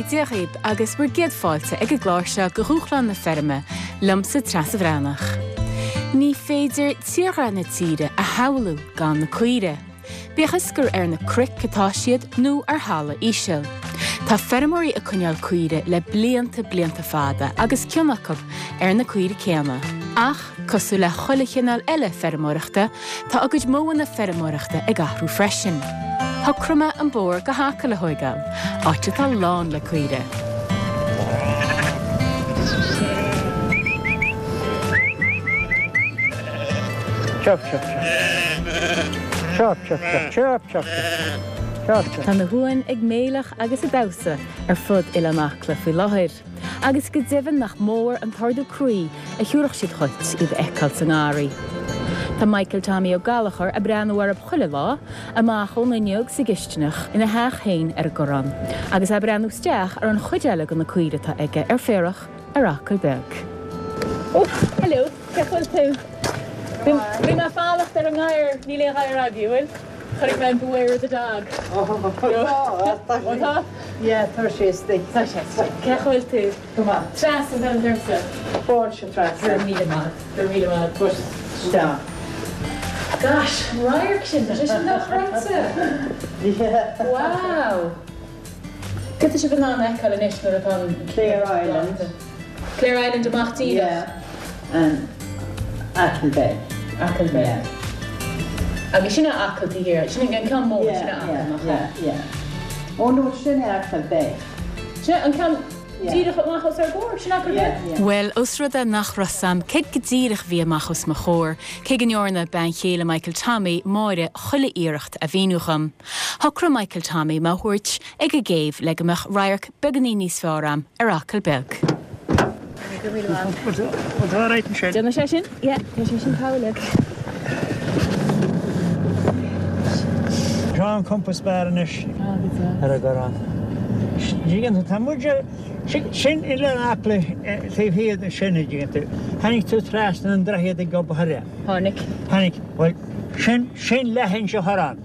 Dia dhaoib agus bhur gcéad fáilte ag an gclár seo de Dhúshlán na Feirme, liomsa Treasa Bhreathnach. Ní féidir tírdhreach na tíre a shamhlú gan na caoire. Bíodh is gur ar na cnoic atá siad nó ar thalamh íseal. Tá feirmeoirí ag coinneáil caoire le blianta blianta fada agus cion acu ar na caoire céanna. Ach, cosúil le chuile chineál eile feirmeoireachta, tá a gcuid modhanna feirmeoireachta ag athrú freisin. Shocraigh mé an bóthar go hAcaill a thóigeáil, áit atá lán le caoire. Chirp, chirp, chirp. Chirp, chirp, chirp, chirp, chirp, chirp. Chirp, chirp. Tá na huain ag méileach agus ag damhsa ar fud Oileán Acla faoi láthair, agus go deimhin nach mór an t-ardú croí a thiúrfadh siad dhuit iad a fheiceáil sa ngarraí. Tá Michael Tommy Ó Gallchóir ag breathnú orthu chuile lá, amach ón fhuinneog sa gcistineach ina theach féin ar an gCorrán, agus é ag breathnú isteach ar an chuid eile de na caoire atá aige ar féarach ar Acaill Beag. Ó, hello, cén chaoi a bhfuil tú? Bhí mé ag fanacht ar an ngadhar, níl aon ghadhar agaibh, bhfuil? Chonaic mé an Beware of the Dog. Ó, tá, Ó tá? Yeah, tá sé istigh. Tá sé istigh. Cén chaoi a bhfuil tú? Go maith. Treasa atá ormsa. Fáilte, Treasa. Go raibh míle maith. Go raibh míle maith. Push isteach. Gosh, an radharc sin, tá sé sin dochreidte. Yeah. Wow. Cad tá sibh in ann a fheiceáil anois nuair atá an. Clare Island. Clare Island amach díreach. Yeah, and Achill Bay. Achill Bay. Yeah. Agus sin é Acaill taobh thiar, sin an ceann mór, sin é Acaill, nach ea? Yeah, yeah, yeah. Oh no, sin é Achill Bay. Sin é an ceann díreach amach os ár gcomhair, sin Achill Bay? Yeah, yeah. Bhuel, os rud é nach raibh 's a'm céard go díreach a bhí amach os mo chomhair, cé go ndearna bean chéile Michael Tommy, Máire, chuile iarracht a mhíniú dhom, Shocraigh Michael Tommy mé a thabhairt ag an gcéibh le go mbeadh radharc beagáinín níos fearr a'm ar Acaill Beag. Déanfaidh sé sin, yeah, tá sé sin togha uilig. Seo an compás beár anois ar an gCorrán. Dtuigeann tú, tá muid ar, sin Oileán Acla taobh thiar de sin, a dtuigeann tú. Tháinig tú trasna an droichead ag Gob Thoire. Tháinig. Tháinig, bhuel, sin, sin leithinse Thorán.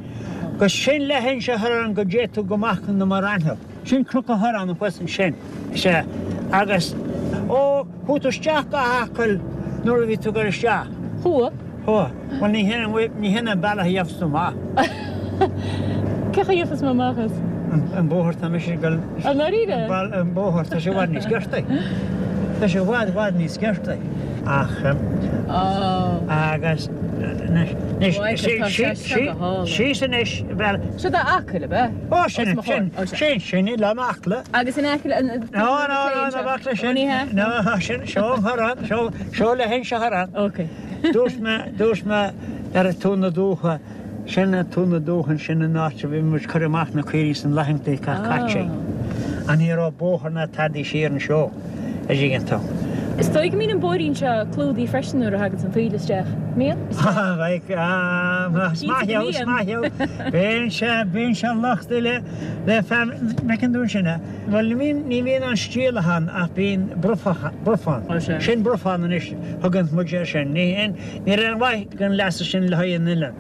Agus sin leithinse Thorán go dté tú go Machaire na Mara. Sin Cnoc an Chorráin thuas ansin. Sea. Agus, ó, chuaigh tú isteach go hAcaill nuair a bhí tú ag dul isteach. Chuaigh. Chuaigh. Bhuel, ní hin an, ní hin an bealach a gheobhas tú amach. Cén chaoi a gheobhas mé amach as? An bóthar, tá mise ag dul. I ndáiríre? An bóthar, tá sé i bhfad níos giortaí. Tá sé i bhfad, i bhfad níos giortaí. Ach, agus, anois, síos anois, bhuel. Seo do Acaill, ab ea? Ó, sin, sin, sin, sin Oileán Acla. Agus in aice le, No, no, no, ná bac leis sin. No, sin, seo an Chorrán, seo, seo leithinse Thorann. Ok. Dúirt mé, dúirt mé ar Tóin na Dumhcha, Sin é Tóin na Dumhchan, sin an áit a bhí muid cur amach na caoirigh san laethanta atá caite. Ach ní raibh bóthar ná tadaí siar anseo, a dtuigeann tú. Is dóigh go mbíonn an bóithrín seo clúdaithe freisin nuair a thagann an taoille isteach. Mbíonn? Is maith thú, is maith thú. Bíonn sé, bíonn sé lochtaithe le, le fear, bhfeiceann tú ansin é. Bhuel, ní bhíonn, ní bhíonn an stiallach ann ach bíonn brufach, brufán. Sin brufán anois, thugann muid air sin. Ní, ní raibh aon mhaith. den leasa sin le haghaidh an oileáin.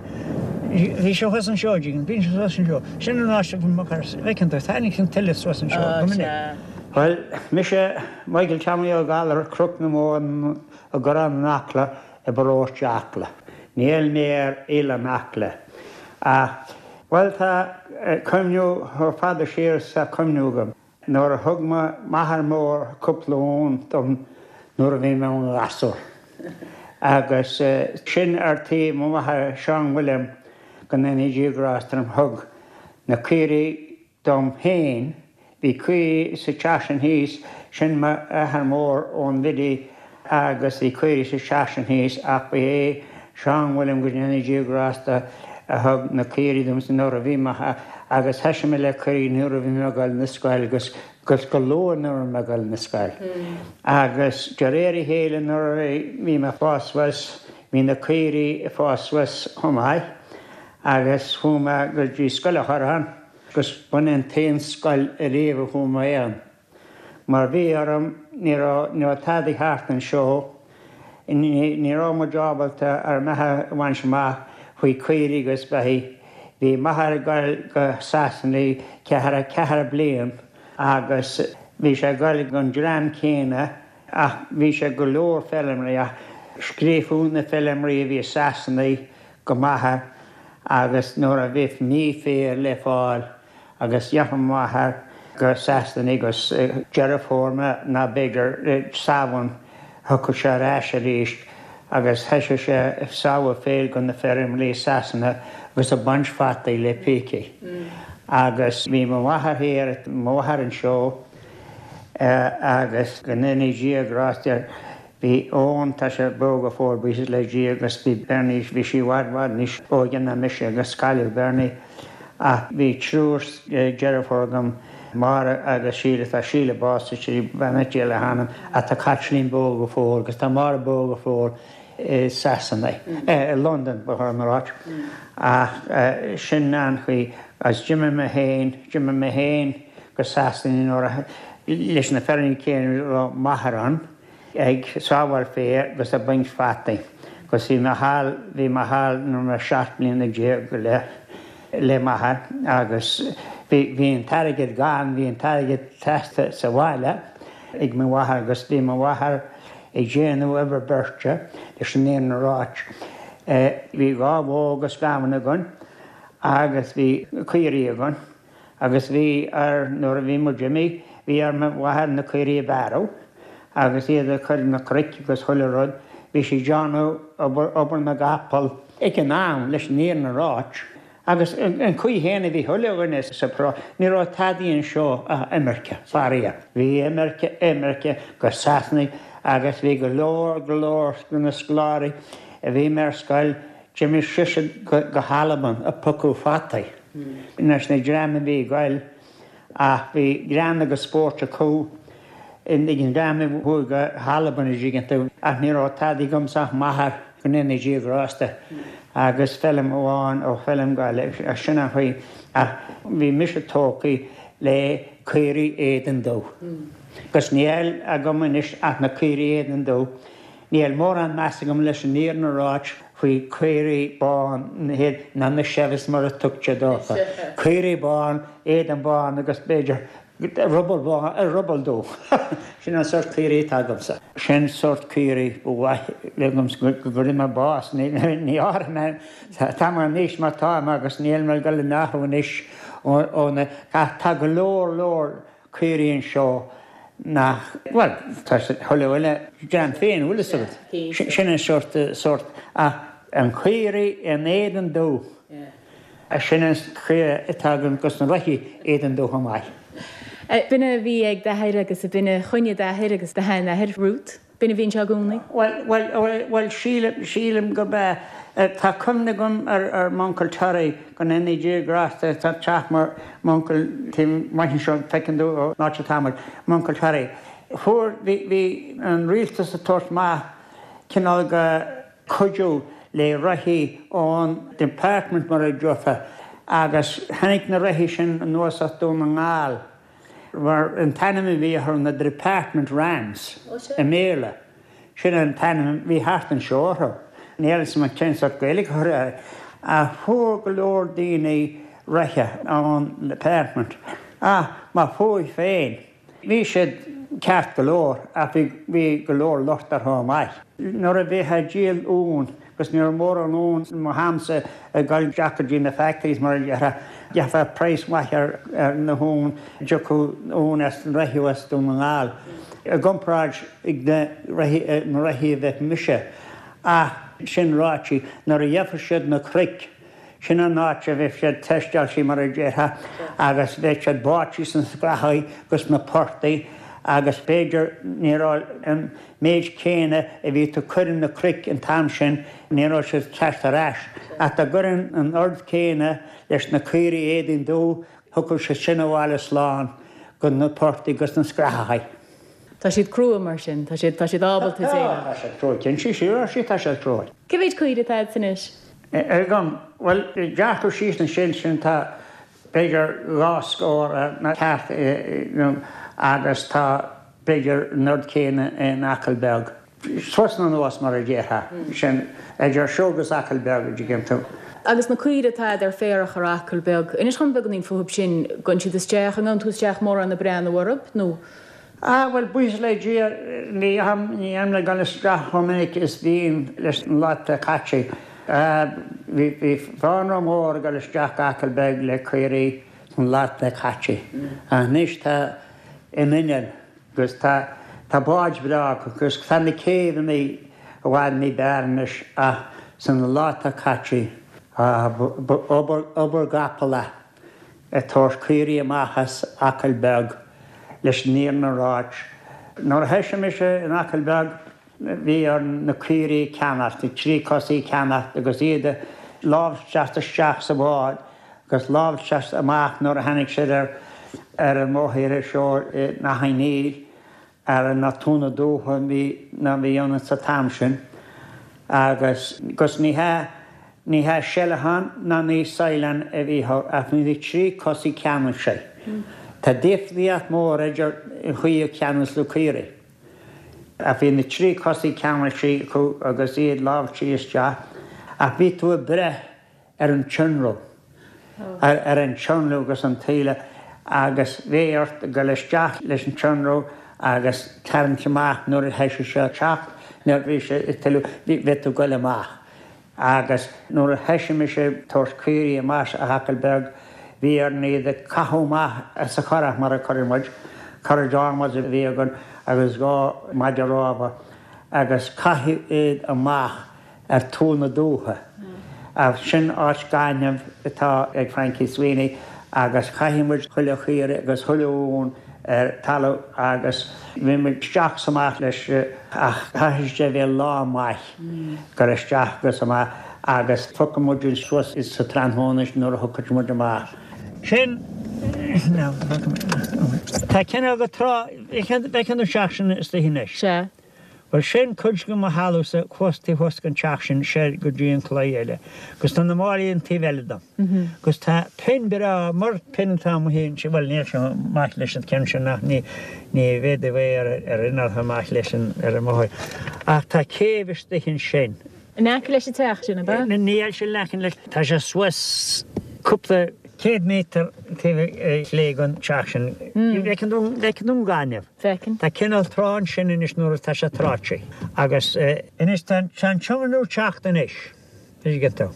Bhí sé thuas anseo, dtuigeann, bíonn sé thuas anseo. Sin an áit a bhfuil mo chur, bhfeiceann tú, tháinig an tuile suas anseo go minic. Bhuel, mise Michael Tommy Ó Gallchóir, Cnoc na Móna i gCorrán in Acla i bparóiste Acla. Níl mé ar Oileán Acla ach, bhuel, tá cuimhniú chomh fada siar is tá cuimhniú agam. Nuair a thug m'athair mór cúpla uan dom nuair a bhí mé i mo ghasúr. Agus sin ar taobh mo mháthair Seán William go ndéana Dia grásta orm thug na caoirigh dom féin, bhí caoirigh sa teach sin thíos, sin m'athair mór ón Bhiddy agus bhí caoirigh sa teach sin thíos ach ba é Seán William go ndéana Dia grásta a thug na caoirigh domsa nuair a bhí mé agus thoisigh mé le caoirigh nuair a bhí mé ag dul na scoil agus agus go luath nuair a bhí mé ag dul na scoil. Agus de réir a chéile nuair a bhí mé ag fás suas bhí na caoirigh ag fás suas chomh maith agus chuaigh mé go dtí Scoil an Chorráin agus b'in an t-aon scoil ariamh a chuaigh mé ann. Mar bhí orm, ní raibh, ní raibh tadaí thart anseo, ní, ní raibh muid ábalta ár mbeatha a bhaint amach faoi caoirigh agus beithígh. Bhí m'athair ag goil go Sasana ceathracha ceathair bliain. Agus bhí sé ag goil gon dream céanna ach bhí sé go leor feilméaraí ach scríobhadh na feilméaraí a bhí i Sasana go m'athair agus nuair a bhí mí féir le fáil agus gheobhadh m'athair go Sasana agus Deireadh Fómhair ná b'fhéidir Samhain thiocfadh sé ar ais arís agus thoisigh sé ag sábháil féir go na feirmeoirí i Sasana agus ag baint fataí le pící. Agus bhí mo mháthair thiar, mo mháthair anseo agus go ndéanaí Dia grásta Bhí Eoin, tá sé beo go fóill, buíochas le Dia, agus bhí Bernie, bhí sí i bhfad, bhfad níos óige ná mise agus cailleadh Bernie ach bhí triúr deirfiúr agam, Máire agus Síle, tá Síle básaithe, beannacht Dé le hanam, ach tá Caitlín beo go fóill agus tá Máire beo go fóill i Sasana, i Londain ba chóir dom a ráit. Ach sin an chaoi agus d'imigh mé féin, d'imigh mé féin go Sasana nuair a, leis na feirmeoirí céanna a raibh m'athair ann. ag sábháil féir agus ag baint fataí agus bhí mé thall, bhí mé thall nuair a bhí mé 17 mbliana go leith le m'athair agus bhí, bhí an t-airgead gann, bhí an t-airgead teasta sa bhaile ag mo mháthair agus bhí mo mháthair ag déanamh obair beirte leis an fhírinne a ráit. Bhí dhá bhó agus gamhain againn agus bhí caoirigh againn. Agus bhí ar, nuair a bhí muid imithe, bhí ar mo mháthair na caoirigh a bhearradh agus iad a chur na cnoic agus chuile rud, bhí sí ag déanamh obair, obair na gcapall ag an am, leis an fhírinne a ráit. Agus an chaoi chéanna a bhí chuile dhuine sa pharóiste, ní raibh tadaí anseo ach imirce, faraor. Bhí imirce, imirce go Sasana agus bhí go leor, go leor de na scoláirí a bhí mé ar scoil, d'imigh siad go hAlbain ag piocadh fataí. Leis na dream a bhí ag goil ach bhí greann agus spórt acu ag an dream a chuaigh go hAlbain an dtuigeann tú ach ní raibh tadaí agamsa ach m'athair go ndéana Dia grásta agus feilm amháin ó feilm Gaillimh sin an chaoi ach bhí mise tógtha le caoirigh éadan dubh agus níl agam anois ach na caoirigh éadan dubh. Níl mórán meas agam leis an fhírinne a ráit faoi caoirigh bán ná na Chevys mar a tugtar dófa. Caoirigh bán, éadan bán agus b'fhéidir ruball bán, ruball dubh. Sin an sórt caoirigh atá agamsa. Sin sórt caoirigh ba mhaith liomsa go gcuirfidh mé bás. Ní áireoidh mé, tá mé anois mar táim agus níl mé ag dul in athrú anois ó na, tá go leor leor caoirigh anseo nach, bhuel, tá chuile dhuine dream féin, bhfuil fhios agat. Sin an sórt, sórt, ach an caoirigh in éadan dubh, sin an chaoi atá agam agus na reithí éadan dubh chomh maith. B'in a bhí ag d'athair agus b'in a choinnigh d'athair agus do sheanathair, Ruth. B'in a bhí anseo i gcónaí? Bhuel, bhuel, bhuel, bhuel, sílim, sílim gurb ea. Tá cuimhne agam ar, ar m'uncail Terry, go ndéana Dia grásta, tá teach mo, m'uncail taobh amuigh anseo, feiceann tú ón áit atá muid, m'uncail Terry. Fuair, bhí, bhí an rialtas ag tabhairt amach cineál de chuidiú le reithí ón department mar a déarfá agus tháinig na reithí sin anuas as Dún na nGall. Mar an t-ainm a bhí orthu na Department Rams i mBéarla. Sin an t-ainm a bhí thart anseo orthu. Níl a fhios agam cén sórt Gaeilge a chur air. Ach fuair go leor daoine reithe ón Department. Ach má fuair féin, bhí siad ceart go leor ach bhí go leor locht orthu chomh maith. Nuair a bhítheá ag díol uan, agus ní raibh mórán uan i mo hamsa ag dul isteach go dtí na factories mar a déarfá, gheofá praghas maith ar na huan, dtiocfadh uan as na reithí as Dún na nGall i gcomparáid ag na reithí, na reithí a bheadh mise. Ach sin ráite, nuair a gheofadh siad na cnoic, Sin an áit a bheadh siad teisteáilte mar a déarfá agus bheadh siad báite sna scrathaí agus sna portaigh agus b'fhéidir ní raibh an méid céanna a bhí tú cur in na cnoic an t-am sin, ní raibh siad teacht ar ais. Ach dá gcuirfinn an oiread céanna leis na caoirigh éadain dubh, thiocfadh siad sin abhaile slán go na portaigh agus na scrathachaí. Tá siad crua mar sin, tá siad, tá siad ábalta déileáil. Tá siad crua, cinnte, sea, tá siad crua. Cé mhéid caoire atá agat anois? Agam, bhuel, dearcadh síos ansin sin tá b'fhéidir dhá scór ceart agus tá b'fhéidir an oiread céanna in Acaill Beag. Suas nó anuas mar a déarfá. Sin idir seo agus Acaill Beag a dtuigeann tú. Agus na caoire atá a'd ar féarach ar Acaill Beag, inis dhom beagáinín fúthub sin, gabhann siad isteach, an ngabhann tú isteach mórán ag breathnú orthub nó? Ah bhuel buíochas le Dia ní théim le dul isteach chomh minic is bhínn leis na laetha caite. Bhí bhí fánra mór ag dul isteach go Acaill Beag le caoirigh sna laetha caite. Ach anois tá an inneall Agus tá, tá báid bhreá acu agus tá na céibheanna i bhfad ní b'fhearr anois ach sna laetha caite, ba obair, obair gcapall é ag tabhairt caoirigh amach as Acaill Beag leis an fhírinne a ráit. Nuair a thoisigh mise in Acaill Beag bhí orainn na caoirigh a cheannacht, na tríchosaigh a cheannacht agus iad a láimhseáilt isteach sa bhád agus láimhseáilt amach nuair a tháinig siad ar ar an mbóthar seo in Achadh Néill ar na Tóin na Dúiche bhí ná bhí ann sa t-am sin agus gus ní hea ní hea seileachán ná ní saighleán a bhí ach bhí na tríchosaigh ceannaithe. Tá difríocht mór idir an chaoi a ceannas na caoirigh. Ach bhí na tríchosaigh ceannaithe acu agus iad láimhsithe isteach, ach bhí tú ag breith ar an tionrú, ar an tionrú agus an taoille agus bhí ort dul isteach leis an tionrú agus tarraingt amach nuair a thoisigh sé ag teacht, nuair a bhí sé ag tuilleadh, bhí tú ag dul amach. Agus nuair a thoisigh mise ag tabhairt caoirigh amach as Acaill Beag, bhí orainn iad a chaitheamh amach as an churach mar a cuireadh muid, currach adhmaid a bhí againn agus 2 maide rámha, agus caitheadh iad amach ar Tóin na Dúiche. Sin áit gainimh atá ag Frankie Sweeney agus chaith muid chuile chaora agus chuile uan ar talamh agus bhí muid isteach 's amach leis ach chaithfidh sé a bheith lá maith gur isteach agus amach agus phiocadh muid suas sa tráthnóna nuair a thiocfadh muid amach. Sin, tá cineál de trá, bhfeiceann tú an teach sin istigh anois. Sea. Bhuel sin cuid de mo thalamhsa thuas taobh thuas den teach sin soir go dtí an claí eile. Agus tá na málaí an taobh eile dom. Agus tá pinn breá, mar pinn atá amuigh ansin, bhuel níl sé maith leis an ceann sin ach ní ní bhféadfaí é ar ar inneall chomh maith leis an ar an mbóthar. Ach tá céibh istigh ansin. In aice leis an teach sin, ab ea? Níl sé in aice leis, tá sé suas cúpla céad méadar taobh chlé den teach sin. Bhfeiceann tú, bhfeiceann tú an gaineamh. Feicim. Tá cineál trá ansin anois nuair atá sé tráite agus. Anois tá an tionrú ag teacht anois, tuigeann tú.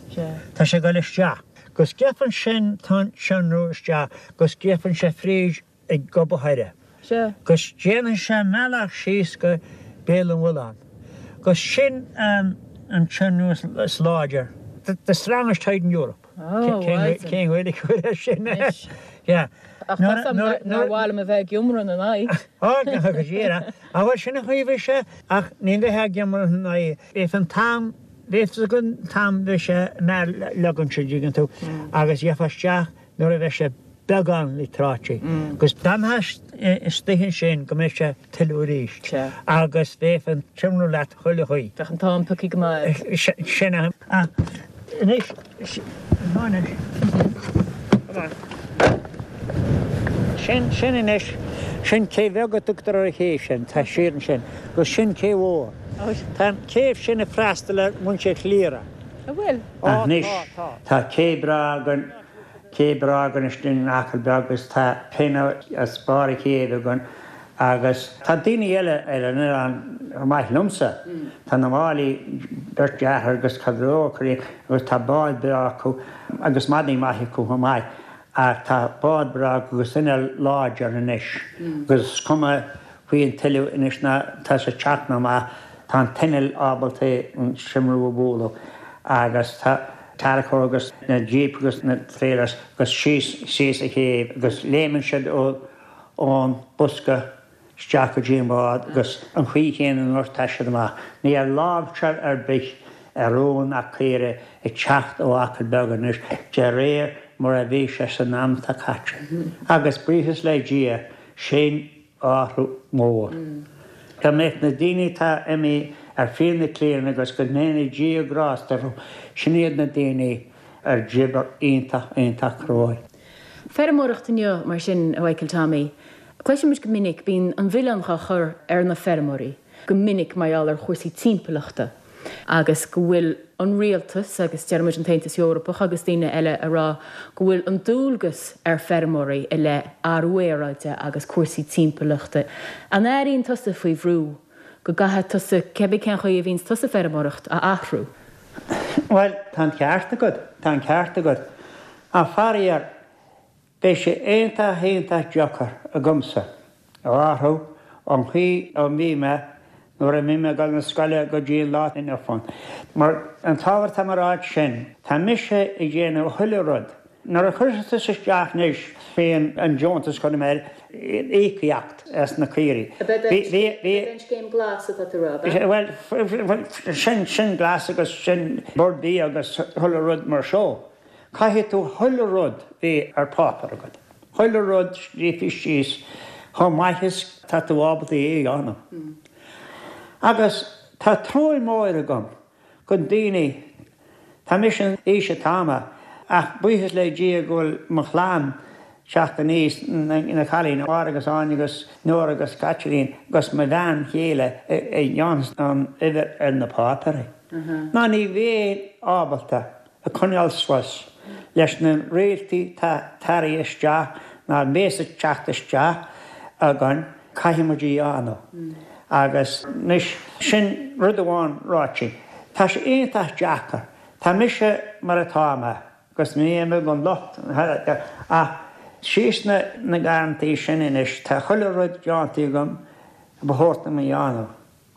Tá sé ag dul isteach. Gus gheibheann sin tá an tionrú isteach gus gheibheann sé fríd ag Gob a' Choire. Gus déanann sé a mbealach síos go Béal an Mhuilleáin. Gus sin an tionrú is láidir. The strongest tide in Europe. Cén Ghaeilge a chur air sin? Yeah. Ach tá 's a'm nár mhaith liom a bheith ag iomramh ina n-aghaidh. Ó, go díreach. Á bhuel, sin an chaoi a bhí sé, ach ní bheifeá ag iomramh ina n-aghaidh. Bheadh an t-am, bheadh fhios agat an t-am bheadh sé mear-leagan an dtuigeann tú, agus gheofá isteach nuair a bheadh sé beagán le tráite. Agus d'fhanfá istigh ansin go mbeadh sé tuilleadh arís. Agus bheadh an t-iomramh leat chuile chaoi. Bheadh an t-am pioctha go maith. Sin é. Ach anois, anois, sin, sin anois, sin cé bheag a tugtar ar an chéibh sin, tá siar ansin, agus sin cé mhór. Tá an chéibh sin ag freastal ar mhuintir Chliara. An bhfuil? Anois, tá cé breá againn. Cé breá againn istigh in Acaill Beag agus tá pinn as barr a chéibhe againn agus tá daoine eile ar an oileán chomh maith liomsa. Tá na Máilí, beirt deartháir agus caidreamh acu agus tá bád breá acu agus madaí maith acu chomh maith ach tá bád breá acu agus inneall láidir anois agus is cuma faoi an tuile anois ná tá sé ag teacht nó amach tá an t-inneall ábalta an t-iomramh a bhualadh agus tá tarracóir agus na jeep agus na trailers agus síos síos an chéibh agus léimeann siad ó ón bosca isteach go dtí an bád agus an chaoi chéanna nuair atá siad amach. Níl láimhseáil ar bith ar uan ná caoire ag teacht ó Acaill Beag anois de réir mar a bhí sé san am atá caite. Agus buíochas le Dia sin athrú mór. Go mbeadh na daoine atá imithe ar fiaigh na cliana agus go ndéana Dia grásta orthu, sin iad na daoine a d'oibir iontach, iontach cruaidh. Feirmeoireacht inniu, mar sin, a Mhichael Tommy. Cloisimid go minic, bíonn an mhilleán á chur ar na feirmeoirí. go minic mar gheall ar chúrsaí timpeallachta agus go bhfuil an rialtas agus deir muid an tAontas Eorpach agus daoine eile ag rá go bhfuil an dualgas ar feirmeoirí i leith athrú aeráide agus cúrsaí timpeallachta. An airíonn tusa faoi bhrú go gcaithfidh tusa, cébí cén chaoi a bhíonns tusa ag feirmeoireacht, a athrú? Bhuel, tá an ceart agat, tá an ceart agat. Ach faraor, Beidh sé iontach iontach deacair agamsa a athrú ón chaoi a mbí mé nuair a bhí mé ag dul na scoile go dtí an lá inniu ann. Mar an t-ábhar atá mé a ráit sin, tá mise ag déanamh chuile rud. Nuair a chuirfeas tusa isteach anois faoi an deontas chun mé íocaíocht as na caoirigh. Ab é an scéim glas atá tú a rá, ab ea? Bhuel, sin, sin glas agus sin Bord Bia agus chuile rud mar seo. Caithfidh tú chuile rud bheith ar páipéar agat, chuile rud scríofa síos chomh maith is tá tú ábalta é a dhéanamh. Agus tá truaí mór agam go daoine, tá mise an aois atá mé, ach buíochas le Dia go bhfuil mo chlann teacht aníos, na cailíní, Máire agus Áine agus Nóra agus Caitlín agus mo bhean chéile a dhéanfas an obair ar na páipéirí. Ná ní bheinn ábalta ag coinneáil suas leis na rialtaí tá tarraingthe isteach ná bhéas ag teacht isteach againn, caithfidh muid a dhéanamh. Agus anois, sin rud amháin ráite. Tá sé iontach deacair. Tá mise mar atá mé, agus ní bheidh mé gan locht ach síos na garrantaí sin anois, tá chuile rud déanta agam a ba chóir dom a dhéanamh.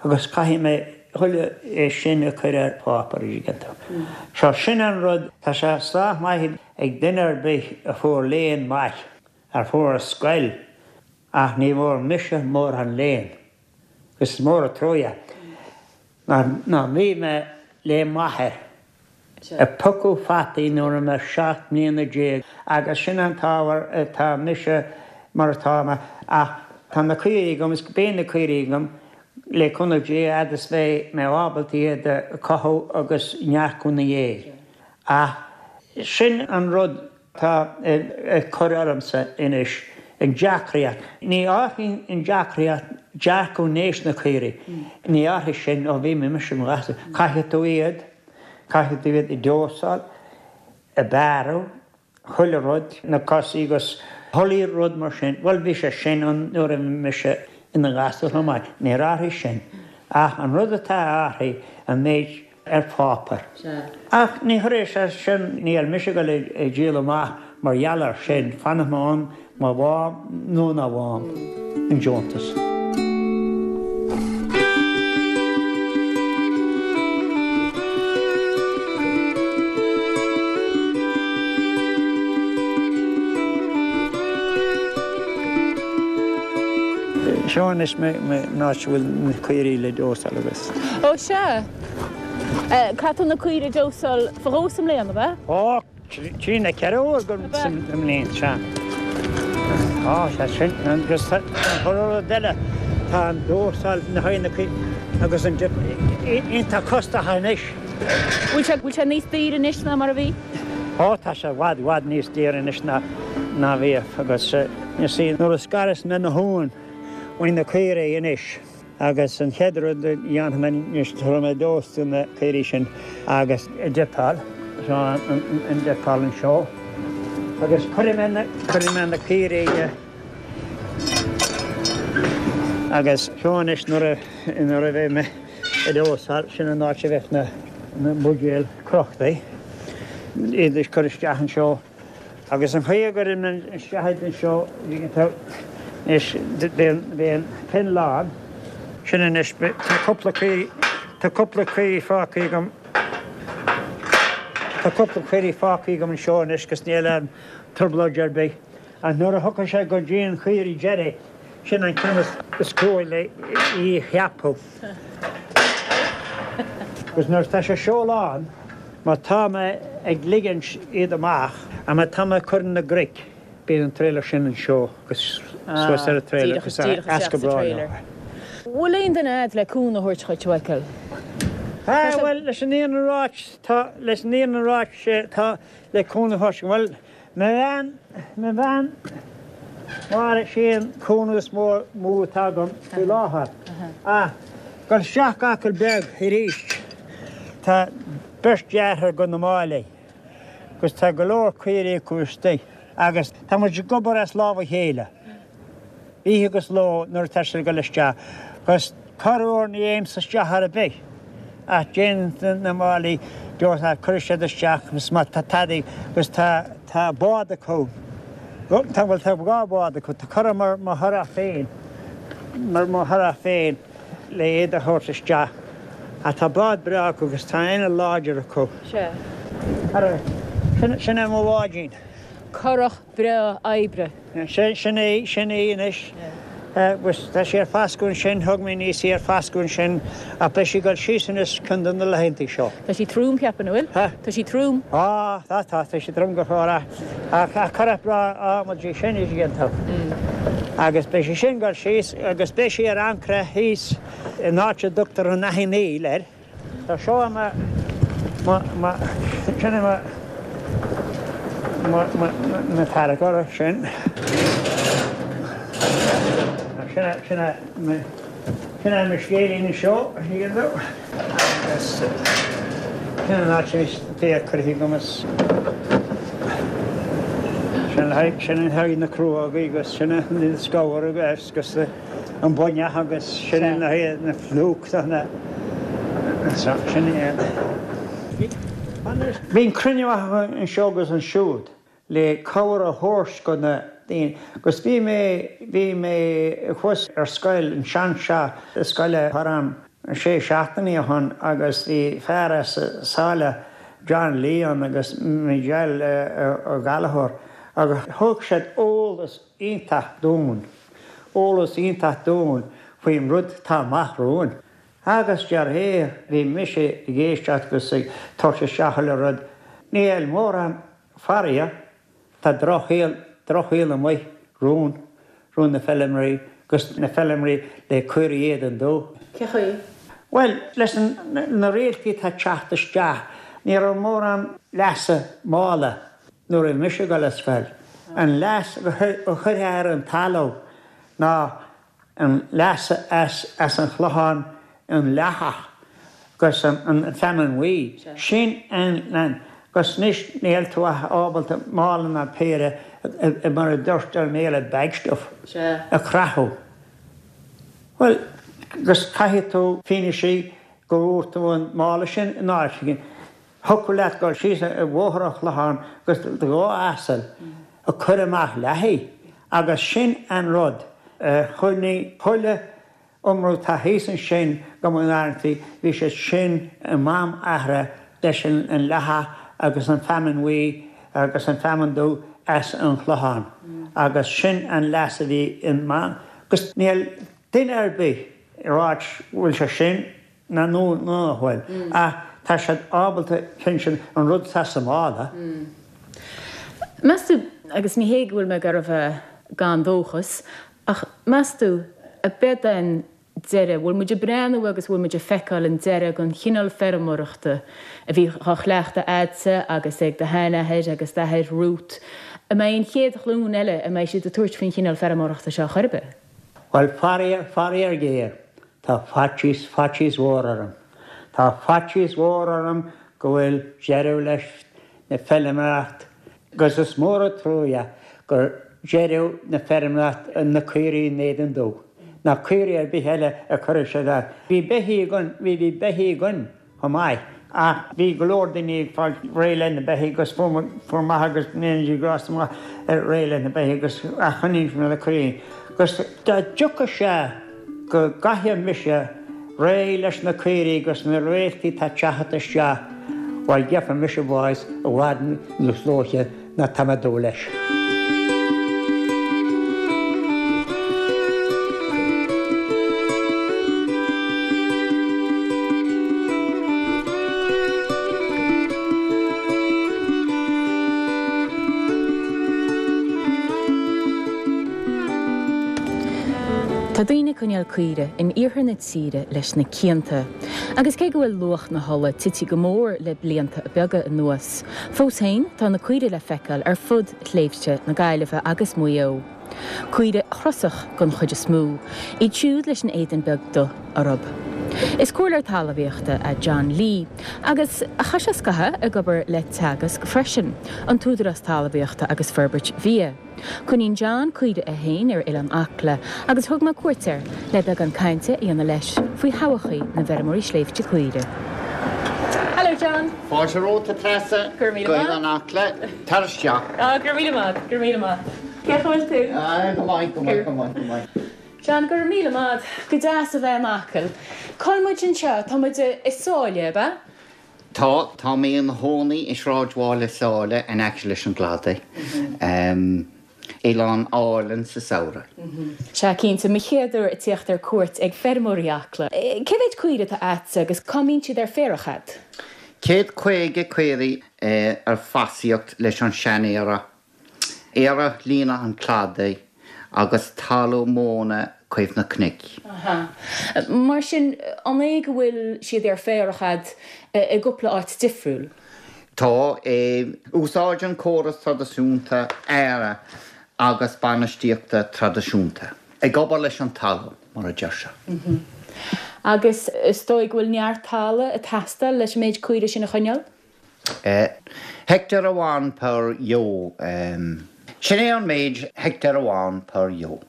Agus caithfidh mé chuile é sin a chur ar pháipéar, an dtuigeann tú. So sin an rud, tá sé sách maith ag duine ar bith a fuair léann maith, a fuair ar scoil, ach ní bhfuair mise mórán léinn. Agus is mór an truaighe ná bhí mé le m'athair. Ag piocadh fataí nuair a bhí mé 17 mbliana agus sin an t-ábhar atá mise mar atá mé ach tá na caoirigh agam is beidh na caoirigh agam le cúnamh Dé a fhad is bheidh mé ábalta iad a chothú agus neartú ina dhiaidh. Ach sin an rud atá ag cur ormsa anois, an deacraíocht. Ní athraíonn an deacraíocht dearcadh nós na caoirigh, ní athraigh sin ó bhí mise i mo ghasúr. Caithfidh tú iad, caithfidh tú iad a dósáil, a bearradh, chuile rud, na cosaí agus chuile rud mar sin. Bhuel, bhí sé sin ann nuair a bhí mise ina ghasúr chomh maith, níor athraigh sin. Ach an rud atá athraithe, an méid ar pháipéar. Ach ní chuirfidh sé sin, níl mise ag dul ag díol amach mar gheall air sin, fanfaidh mé ann má bhfaighim nó ná bhfaighim an deontas. Seo anois an áit a bhfuil na caoirigh le dósáil agus. Ó sea. Caithfidh tú na caoirigh a dósáil fá dhó sa mbliain, ab ea? Ó, trí nó 4 uair sa mbliain, sea. Á, sea, sin, agus tá an rud eile, tá an dósáil na haghaidh na caoirigh agus an dip iontach costach anois. Bhfuil sé, bhfuil sé níos daoire anois ná mar a bhí? Ó, tá sé i bhfad, i bhfad níos daoire anois ná, ná bhíodh agus, you see, nuair a scaras mé na huain uaidh na caoirigh anois, Agus an chéad rud a dhéanfaidh mé anois, tabharfaidh mé dós do na caoirigh sin agus dippeáil, seo an dippeáil anseo, agus cuirfidh mé na, cuirfidh mé na caoirigh agus seo anois nuair a, nuair a bheidh mé ag dósáil, sin an áit a bheidh na, na buidéil crochtaí, iad a chur isteach anseo. Agus an chaoi a gcuirim isteach iad anseo, anois, beidh an pen lán. Sin anois, tá cúpla caoirigh, tá cúpla caoirigh fágtha agam, tá cúpla caoirigh fágtha agam anseo anois agus níl aon trioblóid ar bith. Ach nuair a thiocfaidh sé go dtí an chaoirigh deiridh, sin an ceann is crua le í a cheapadh. Agus nuair atá sé seo lán, má tá mé ag ligint iad amach, a má tá mé ag cur na gcnoic, bíonn an trailer sin anseo agus suas ar an trailer agus as go breá leo. Bhfuil aon duine a'd le cúnamh a thabhairt dhuit, a Mhichael? Ah, bhuel, leis an fhírinne a ráit, tá, leis an fhírinne a ráit, tá le cúnamh a thabhairt, bhuel, Mo bhean, mo bhean, Máire, sí an cúnamh is mó atá agam faoi láthair. Ach. Dul isteach go Acaill Beag arís. Tá beirt deartháir go na Máilligh agus tá go leor caoirigh acu istigh agus tá muid ag obair as lámh a chéile oíche agus ló nuair atá siad ag dul isteach agus corruair ní théimse isteach ar bith ach déanann na Máilligh deoir cuirfidh siad isteach agus má tá tadaí agus tá tá bád acu tá bhuel tá dhá bhád acu tá curach mar mo churach féin mar mo churach féin. le iad a thabhairt isteach. Ach tá bád breá acu agus tá inneall láidir acu. Sea. Ara, sin, sin é mo bháidín. Curach breá oibre. Sin, sin é, sin í anois. Agus tá sí ar fascadh ansin, thug mé aníos í ar fascadh ansin, ach beidh sí ag dul síos anois ceann de na laethantaí seo. Tá sí trom, cheapfainn, an bhfuil? Ha? Tá sí trom. Á, tá, tá, tá sí trom go fóill ach, ach, ach curach breá adhmaid í sin, a dtuigeann tú. Agus beidh sí sin ag dul síos agus beidh sí ar ancaire thíos in áit a dtugtar an Fhaiche Néill air. Tá seo i mo, mo, mo, sin é mo, mo, mo, mo tarracóir sin. Sin é, sin é mo, sin é mo scéilín anseo, a thuigeann tú. Agus sin an áit is féar curtha agam is sin le haghaidh, sin le haghaidh na crúógaí agus sin an scabhar agus an buinneach agus sin le haghaidh na phlúch na, sin é. Bíonn cruinniú anseo agus ansiúd. le cabhair a thabhairt go na daoine. Agus bhí mé, bhí mé thuas ar scoil, an sean-teach scoile thar am sé seachtainí ó shoin agus bhí fear as Sáile, John Lee ann agus Miguel Ó Gallchóir agus thug siad eolas iontach dúinn, eolas iontach dúinn faoin rud atá amach romhainn. Agus de réir, bhí mise ag éisteacht agus ag tabhairt isteach chuile rud, níl mórán Faraor, tá drochshaol, drochshaol amuigh romhainn, romhainn na feilméaraí, agus na feilméaraí le caoirigh éadan dubh. Cé chaoi? Bhuel, leis na rialacha atá ag teacht isteach, ní raibh mórán leasa mála nuair a bhí mise ag dul ar scoil. An leas a chuirfeá ar an talamh ná an leas as an Chlochán, an leathach agus an feamainn bhuí. Sin an, agus anois níl tú ach ábalta mála ná péire, mar a deirtear i mBéarla, bag stuff, a chrochadh. Bhuel, agus caithfidh tú fianaise go bhfuair tú an mála sin in áit éigin. Thiocfadh leat dul síos ar Bhóthar an Chlocháin agus do dhá asal ag cur amach leathaigh agus sin an rud a choinnigh chuile iomramh atá thíos ansin go mba bhí siad sin i mám athra leis an leathach agus an feamainn bhuí agus an feamainn dubh as an Chlochán agus sin an leas a bhí i agus níl duine ar bith ag ráit bhfuil sé sin ná nó nach bhfuil, ach tá siad ábalta pinsean an rud atá sa mála. Meas tú, agus ní hé go bhfuil mé ag iarraidh a bheith gan dóchas, ach meas tú, ab é an deireadh, bhfuil muid ag breathnú agus bhfuil muid ag feiceáil an deireadh den chineál feirmeoireachta a bhí á chleachtadh a'dsa agus ag do sheanathair agus d'athair Ruth, an mbeidh an chéad ghlúin eile, an mbeidh siad ag tabhairt faoin chineál feirmeoireachta seo chor ar bith? Bhuel, faraor, faraor géar, Tá faitíos, faitíos mhór orm. Tá faitíos mhór orm go bhfuil deireadh leis na feilméaracht agus is mór an truaighe gur deireadh na feirmeoireacht na caoirigh in éadan dubh ná caoirigh ar bith eile a chuirfeadh siad as. Bhí beithígh againn, bhí, bhí beithígh againn. chomh maith. Ach bhí go leor daoine ag fáil réidh le na beithígh agus fuair fuair m'athair agus go ndéana Dia grásta maith air réidh le na beithígh agus ach choinnigh mé le caoirigh. Agus dá dtiocfadh sé go gcaithfeadh mise réidh leis na caoirigh agus na réaltaí atá ag teacht isteach, bhuel gheobhaidh mise bás i bhfad níos luaithe ná tá mé ag dúil leis. Tá daoine ag coinneáil caoire in iarthar na tíre leis na cianta. Agus cé go bhfuil luach na hola tite go mór le blianta beaga anuas, fós féin tá na caoirigh le feiceáil ar fud shléibhte na Gaillimhe agus Mhaigh Eo. Caoirigh chrosach den chuid is mó, iad siúd leis an éadan beag dubh orthu. Is comhairleoir talmhaíochta é John Lee agus chaith sé scaitheamh ag obair le Teagasc freisin, an tÚdarás Talmhaíochta agus Forbairt Bhia. Coinníonn John caoirigh é féin ar Oileán Acla agus thug mé cuairt air le beagán cainte a dhéanamh leis faoi thodhchaí na bhfeirmeoirí sléibhte caoirigh. Hello John! Fáilte romhat a Treasa Go raibh míle go maith. Oileán Acla. Tar isteach. Ah, go raibh míle maith, go raibh míle maith. Cén chaoi a bhfuil tú? Ah, go maith, go maith, go maith, go maith. John, go raibh míle maith. Go deas a bheith in Acaill. Cá bhfuil muid anseo? Tá muid i Sáile, ab ea? Tá, tá mé i mo chónaí i sráidbhaile Sáile in aice leis an gcladach. Oileán álainn sa samhradh. Sea, cinnte. Mo chéad uair ag tíocht ar cuairt ag feirmeoirí Acla. Cé mhéid caoire atá a'dsa agus cá mbíonn siad ar féarach a'd? 150 caoirigh ar fosaíocht leis an seanfhéarach. Féarach líne an chladaigh agus talamh móna taobh na cnoic. Aha. Mar sin, an é go bhfuil siad ar féarach a'd i gcúpla áit difriúil? Tá. Úsáid an córas traidisiúnta fhéaraigh agus bainistíochta traidisiúnta. Ag obair leis an talamh, mar a deir sé. Agus is dóigh go bhfuil neart talaimh ag teastáil leis an méid caoirigh sin a choinneáil? Heicteár amháin per ewe. Sin é an méid, heicteár amháin per ewe.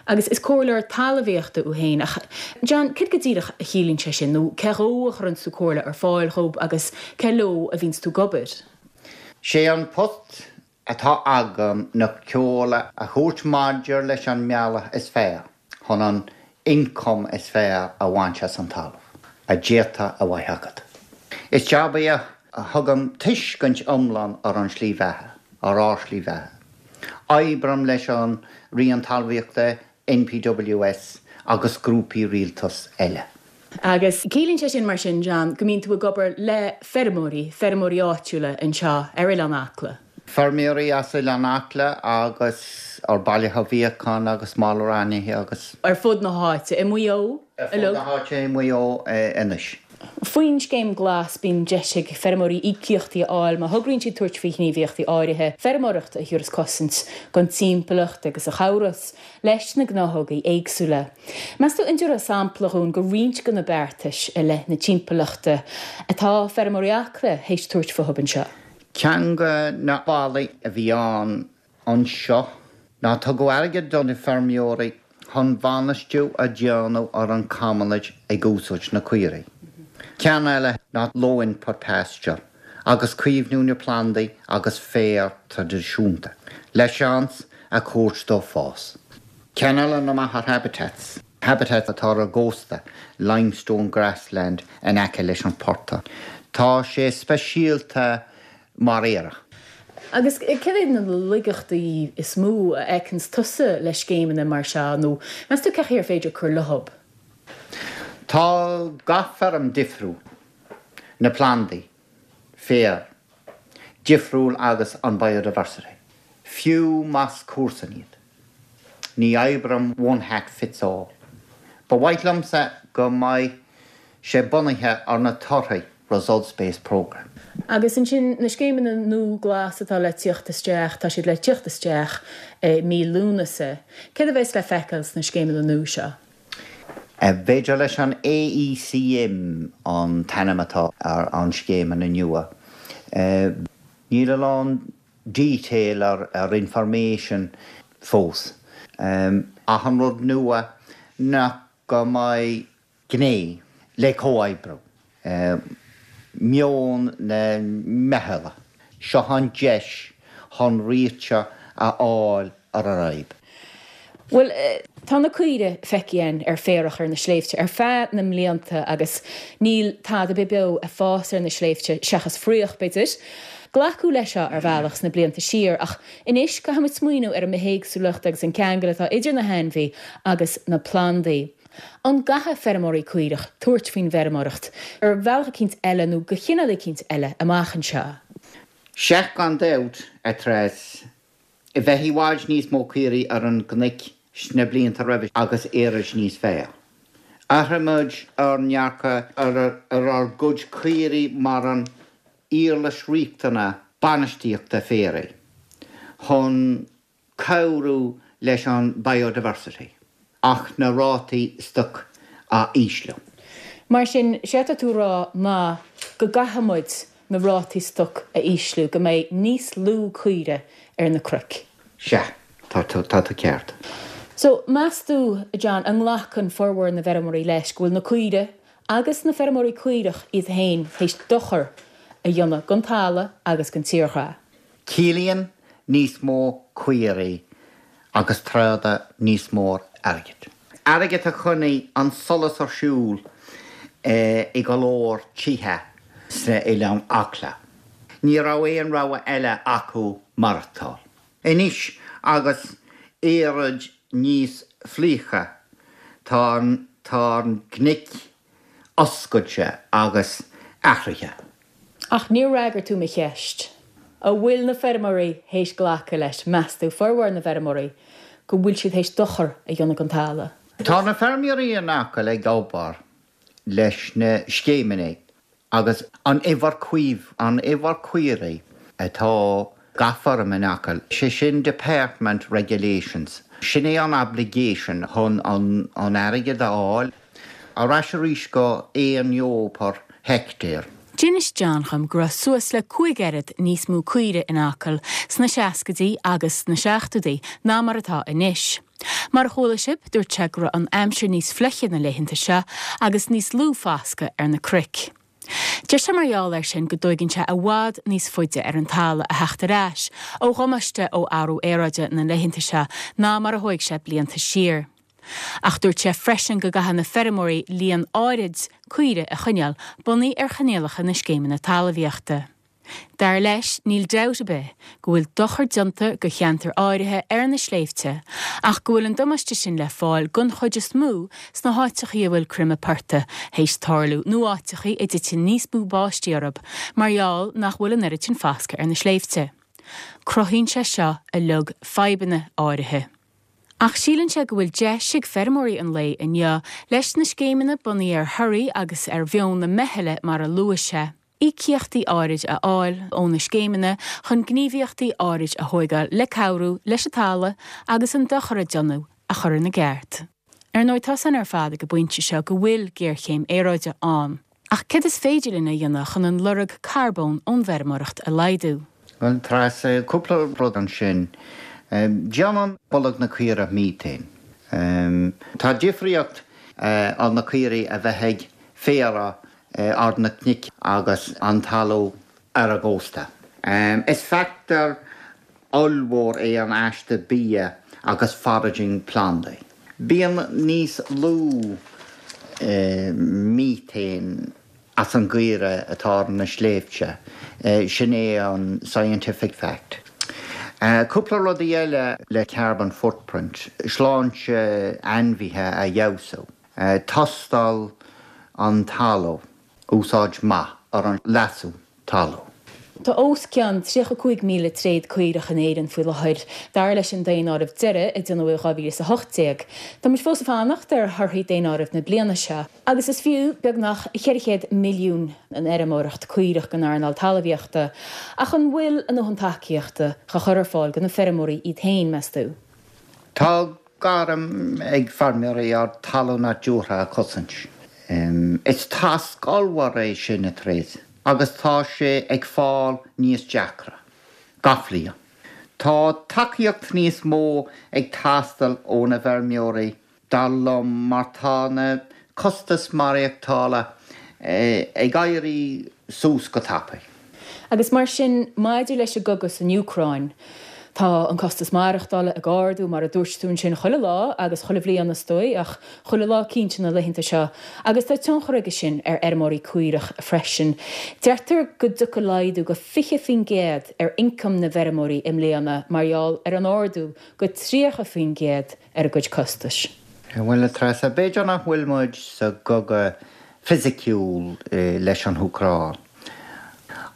Agus is comhairleoir talmhaíochta thú féin, ach John, céard go díreach a chiallaíonn sé sin, nó cé dhó a chuireanns tú comhairle ar fáil dhób agus cé leo a bhíonns tú ag obair? Sé an post atá agam ná comhairle a thabhairt maidir leis an mbealach is fearr chun an ioncam is fearr a bhaint as an talamh a d'fhéadfadh a bheith agat. Is jab é a thugann tuiscint iomlán ar an slí bheatha, ar ár slí bheatha. Oibrím leis an Roinn Talmhaíochta, NPWS agus grúpaí rialtais eile. Agus ciallaíonn sé sin mar sin, John, go mbíonn tú ag obair le feirmeoirí, feirmeoirí áitiúla anseo ar Oileán Acla? Feirmeoirí as Oileán Acla agus ar Baile Mhíocháin agus Malar Ainithe agus. Ar fud na háite, i Maigh Eo Ar fud na háite i Maigh Eo anois. Faoin Scéim Glas, bíonn deis ag feirmeoirí íocaíochtaí a fháil má thograíonn siad tabhairt faoi ghníomhaíochtaí áirithe feirmeoireachta a thiúrfas cosaint don timpeallacht agus a chabhros leis na gnáthógaí éagsúla. Meas tú an dtabharfá sampla dhúinn de roinnt de na beartais i leith na timpeallachta atá feirmeoirí Acla théis tabhairt fúthu anseo? Ceann de na bealaí a bhí ann anseo ná tugadh airgead do na feirmeoirí chun bainistiú a dhéanamh ar an commonage ag úsáid na caoirigh. Ceann eile ná low input pasture agus caomhnú na plandaí agus féar traidisiúnta le seans a thabhairt dó fás. Ceann eile ná machaire habitats, habitats atá ar an gcósta, limestone grassland in aice leis an portach. Tá sé speisialta mar fhéarach. Agus céard iad na laigeachtaí is mó a fheiceanns tusa le scéimeanna mar seo nó meas tú cén chaoi ar féidir cur leob? Tá gach feirm difriúil, na plandaí, féar, difriúil agus an biodiversity, fiú más comharsain iad. Ní oibreann one hat fits all. Ba mhaith liomsa go mbeidh sé bunaithe ar na torthaí, results based programme. Agus ansin na scéimeanna nua glas atá le tíocht isteach, tá siad le tíocht isteach i mí Lúnasa. Céard a bheas le feiceáil sna scéimeanna nua seo? B'fhéidir leis an AECM an t-ainm atá ar an scéimeanna nua. Níl a lán detail ar information fós. Ach an rud nua ná go mbeidh gné le comhoibriú, meon na meithle. Seo an deis chun réiteach a fháil ar an fhadhb. Bhuel, tá na caoirigh feicthe againn ar féarach ar na sléibhte ar feadh na mblianta agus níl tada ar bith beo ag fás ar na sléibhte seachas fraoch, b'fhéidir. Glacadh leis seo ar bhealach sna blianta siar ach anois caithfidh muid smaoineamh ar an mbithéagsúlacht agus an ceangal atá idir na hainmhí agus na plandaí. An gcaithfidh feirmeoirí caorach tabhairt faoin bhfeirmeoireacht ar bhealach eicínt eile nó de chineál eicínt eile amach anseo? Sea, gan dabht, a Treas. Bheadh i bhfad níos mó caoirigh ar an gcnoic sna blianta roimhe agus éirí níos fearr. Athraigh muid ár ndearcadh ar ár gcuid caoirigh mar an uirlis riachtanach bainistíochta féaraigh chun cabhrú leis an biodiversity ach na rátaí stoc a ísliú. Mar sin, séard atá tú a rá ná go gcaithfidh muid na rátaí stoc a ísliú, go mbeidh níos lú caoire ar na cnoic. Sea, tá tú, tá tú ceart. So, meas tú, a John, an nglacann formhór na bhfeirmeoirí leis go bhfuil na caoire agus na feirmeoirí caorach iad féin théis dochar a dhéanamh don talamh agus don tírdhreach? Ciallaíonn níos mó caoirigh agus tráda níos mór airgid. Airgead a choinnigh an solas ar siúl i go leor tithe sna Oileáin Acla. Ní raibh aon rogha eile acu maireachtáil. Anois agus aeráid níos fliucha, tá an tá an cnoic oscailte agus athraithe. Ach níor fhreagair tú mo cheist. An bhfuil na feirmeoirí théis glacadh leis, meas tú, formhór na bhfeirmeoirí, go bhfuil siad théis dochar a dhéanamh don talamh? Tá na feirmeoirí in Acaill ag obair leis na scéimeanna agus an uimhir caomh, an uimhir caoirigh atá gach feirm in Acaill, sé sin Department Regulations, sin é an obligation chun an airgead a fháil. Ar ais arís go 1 ewe per hectare. D'inis John dhom go raibh suas le 5 oiread níos mó caoire in Acaill sna seascaidí agus sna seachtóidí ná mar atá anois. Mar a chuala sibh, dúirt sé go raibh an aimsir níos fliche na laethanta seo agus níos lú foscadh ar na cnoic. Deir sé mar gheall air sin go dtóigeann sé i bhfad níos faide ar an talamh a theacht ar ais ó dhamáiste ó athrú aeráide na laethanta seo ná mar a thóig sé blianta siar. Ach dúirt sé freisin go gcaithfidh na feirmeoirí líon áirid caoire a choinneáil bunaithe ar choinníollacha na scéimeanna talmhaíochta. Dar leis, níl dabht ar bith go bhfuil dochar déanta go cheantair áirithe ar na sléibhte ach go bhfuil an damáiste sin le fáil den chuid is mó sna háiteachaí a bhfuil creimeadh portaigh théis tarlú nó áiteachaí a dtiteann níos mó báistí orthu mar gheall nach bhfuil an oiread sin foscaidh ar na sléibhte. Cruthaíonn sé seo uilig fadhbanna áirithe. Ach síleann sé go bhfuil deis ag feirmeoirí an lae inniu leis na scéimeanna bunaithe ar thorthaí agus ar mheon na meithle mar a luaigh sé, íocaíochtaí áirid a fháil ó na scéimeanna chun gníomhaíochtaí áirid a thóigeáil le cabhrú leis an talamh agus an dochar a déanadh a chur ina gceart. Ar ndóigh, tá 's againn ar fad ag an bpointe seo go bhfuil géarchéim aeráide ann. Ach céard is féidir linn a dhéanamh chun an lorg carbóin ón bhfeirmeoireacht a laghdú? Bhuel, Treasa, cúpla rud ansin. Déanann bolg na caoire methane. Tá difríocht ar na caoirigh a bheith ag féarach ar na cnoic agus an talamh ar an gcósta. Is factor ollmhór é an aiste bia agus foraging plandaí. Bíonn níos lú methane as an gcaoire atá ar na sléibhte, sin é an scientific fact. Cúpla rudaí eile le carbon footprint, sláinte ainmhithe a fheabhsú. Tástáil an talamh, úsáid maith ar an leasú talamh. Tá os cionn 35,000 tréad caorach in Éirinn faoi láthair, dar leis an daonáireamh deiridh a déanadh i 2018. Tá muid fós ag fanacht ar thorthaí daonáireamh na bliana seo. Agus is fiú beagnach 400 milliún an fheirmeoireacht caorach don earnáil talmhaíochta. Ach an bhfuil a ndóthain tacaíochta á chur ar fáil do na feirmeoirí iad féin, meas tú? Tá gairm ag feirmeoirí ár dtalamh nádúrtha a chosaint. Is tasc ollmhór é sin, a Thréas, agus tá sé ag fáil níos deacra gach bliain. Tá tacaíocht níos mó ag teastáil ó na bhfeirmeoirí dar liom mar tá na costais maireachtála ag éirí suas go tapaidh. Agus mar sin, maidir leis an gcogadh san Úcráin, tá an costas maireachtála ag ardú, mar a dúirt tú ansin, chuile lá agus chuile bhliain is dóigh, ach chuile lá cinnte na laethanta seo, agus tá tionchar aige sin ar fheirmeoirí caorach freisin. Deirtear go dtiocfaidh laghdú go 20% ar ioncam na bhfeirmeoirí i mbliana mar gheall ar an ardú go 30% ar a gcuid costais. Bhuel, a Treasa, b'fhéidir nach bhfuil muid sa gcogadh fisiciúil leis an hÚcráin,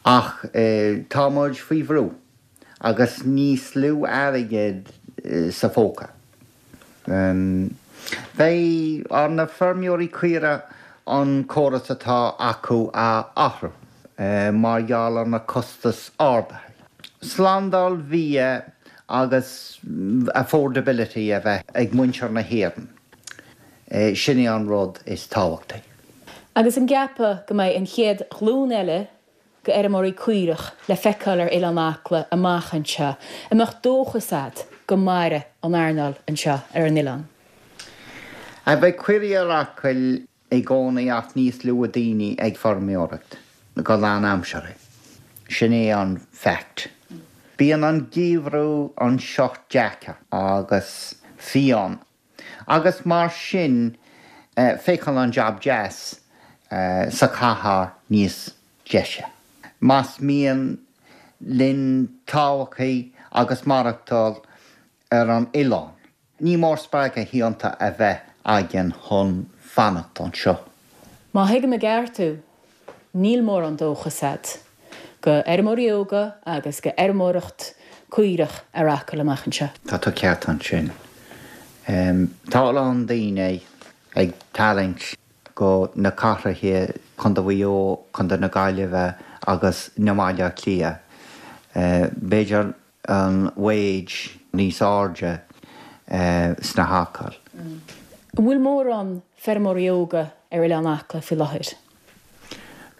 ach tá muid faoi bhrú agus níos lú airgid sa phóca. Beidh ar na feirmeoirí caorach an córas atá acu a athrú mar gheall ar na costais ardaithe. Slándáil bhia agus affordability a bheith ag muintir na hÉireann, sin é an rud is tábhachtaí. Agus an gceapfá go mbeidh an chéad ghlúin eile de fheirmeoirí caorach le feiceáil ar Oileán Acla amach anseo? An mbeadh dóchas a'd go mairfidh an earnáil anseo ar an oileán? Beidh caoirigh ar Acaill i gcónaí ach níos lú daoine ag feirmeoireacht go lánaimseartha. Sin é an fact. Bíonn an geimhreadh anseo deacair agus fiáin agus mar sin féachann an jab deas sa chathair níos deise. Más mian linn todhchaí agus maireachtáil ar an oileán, ní mór spreagadh iontach a bheith againn chun fanacht anseo. Má thuigim i gceart thú, níl mórán dóchas a'd go fheirmeoirí óga agus go fheirmeoireacht caorach ar Acaill amach anseo. Tá tú ceart ansin. Tá a lán daoine ag tarraingt go na cathracha, Contae Mhaigh Eo, Contae na Gaillimhe agus na mBaile Átha Cliath. B'fhéidir an wage níos airde sna hAcaill. An bhfuil mórán feirmeoirí óga ar Oileán Acla faoi láthair?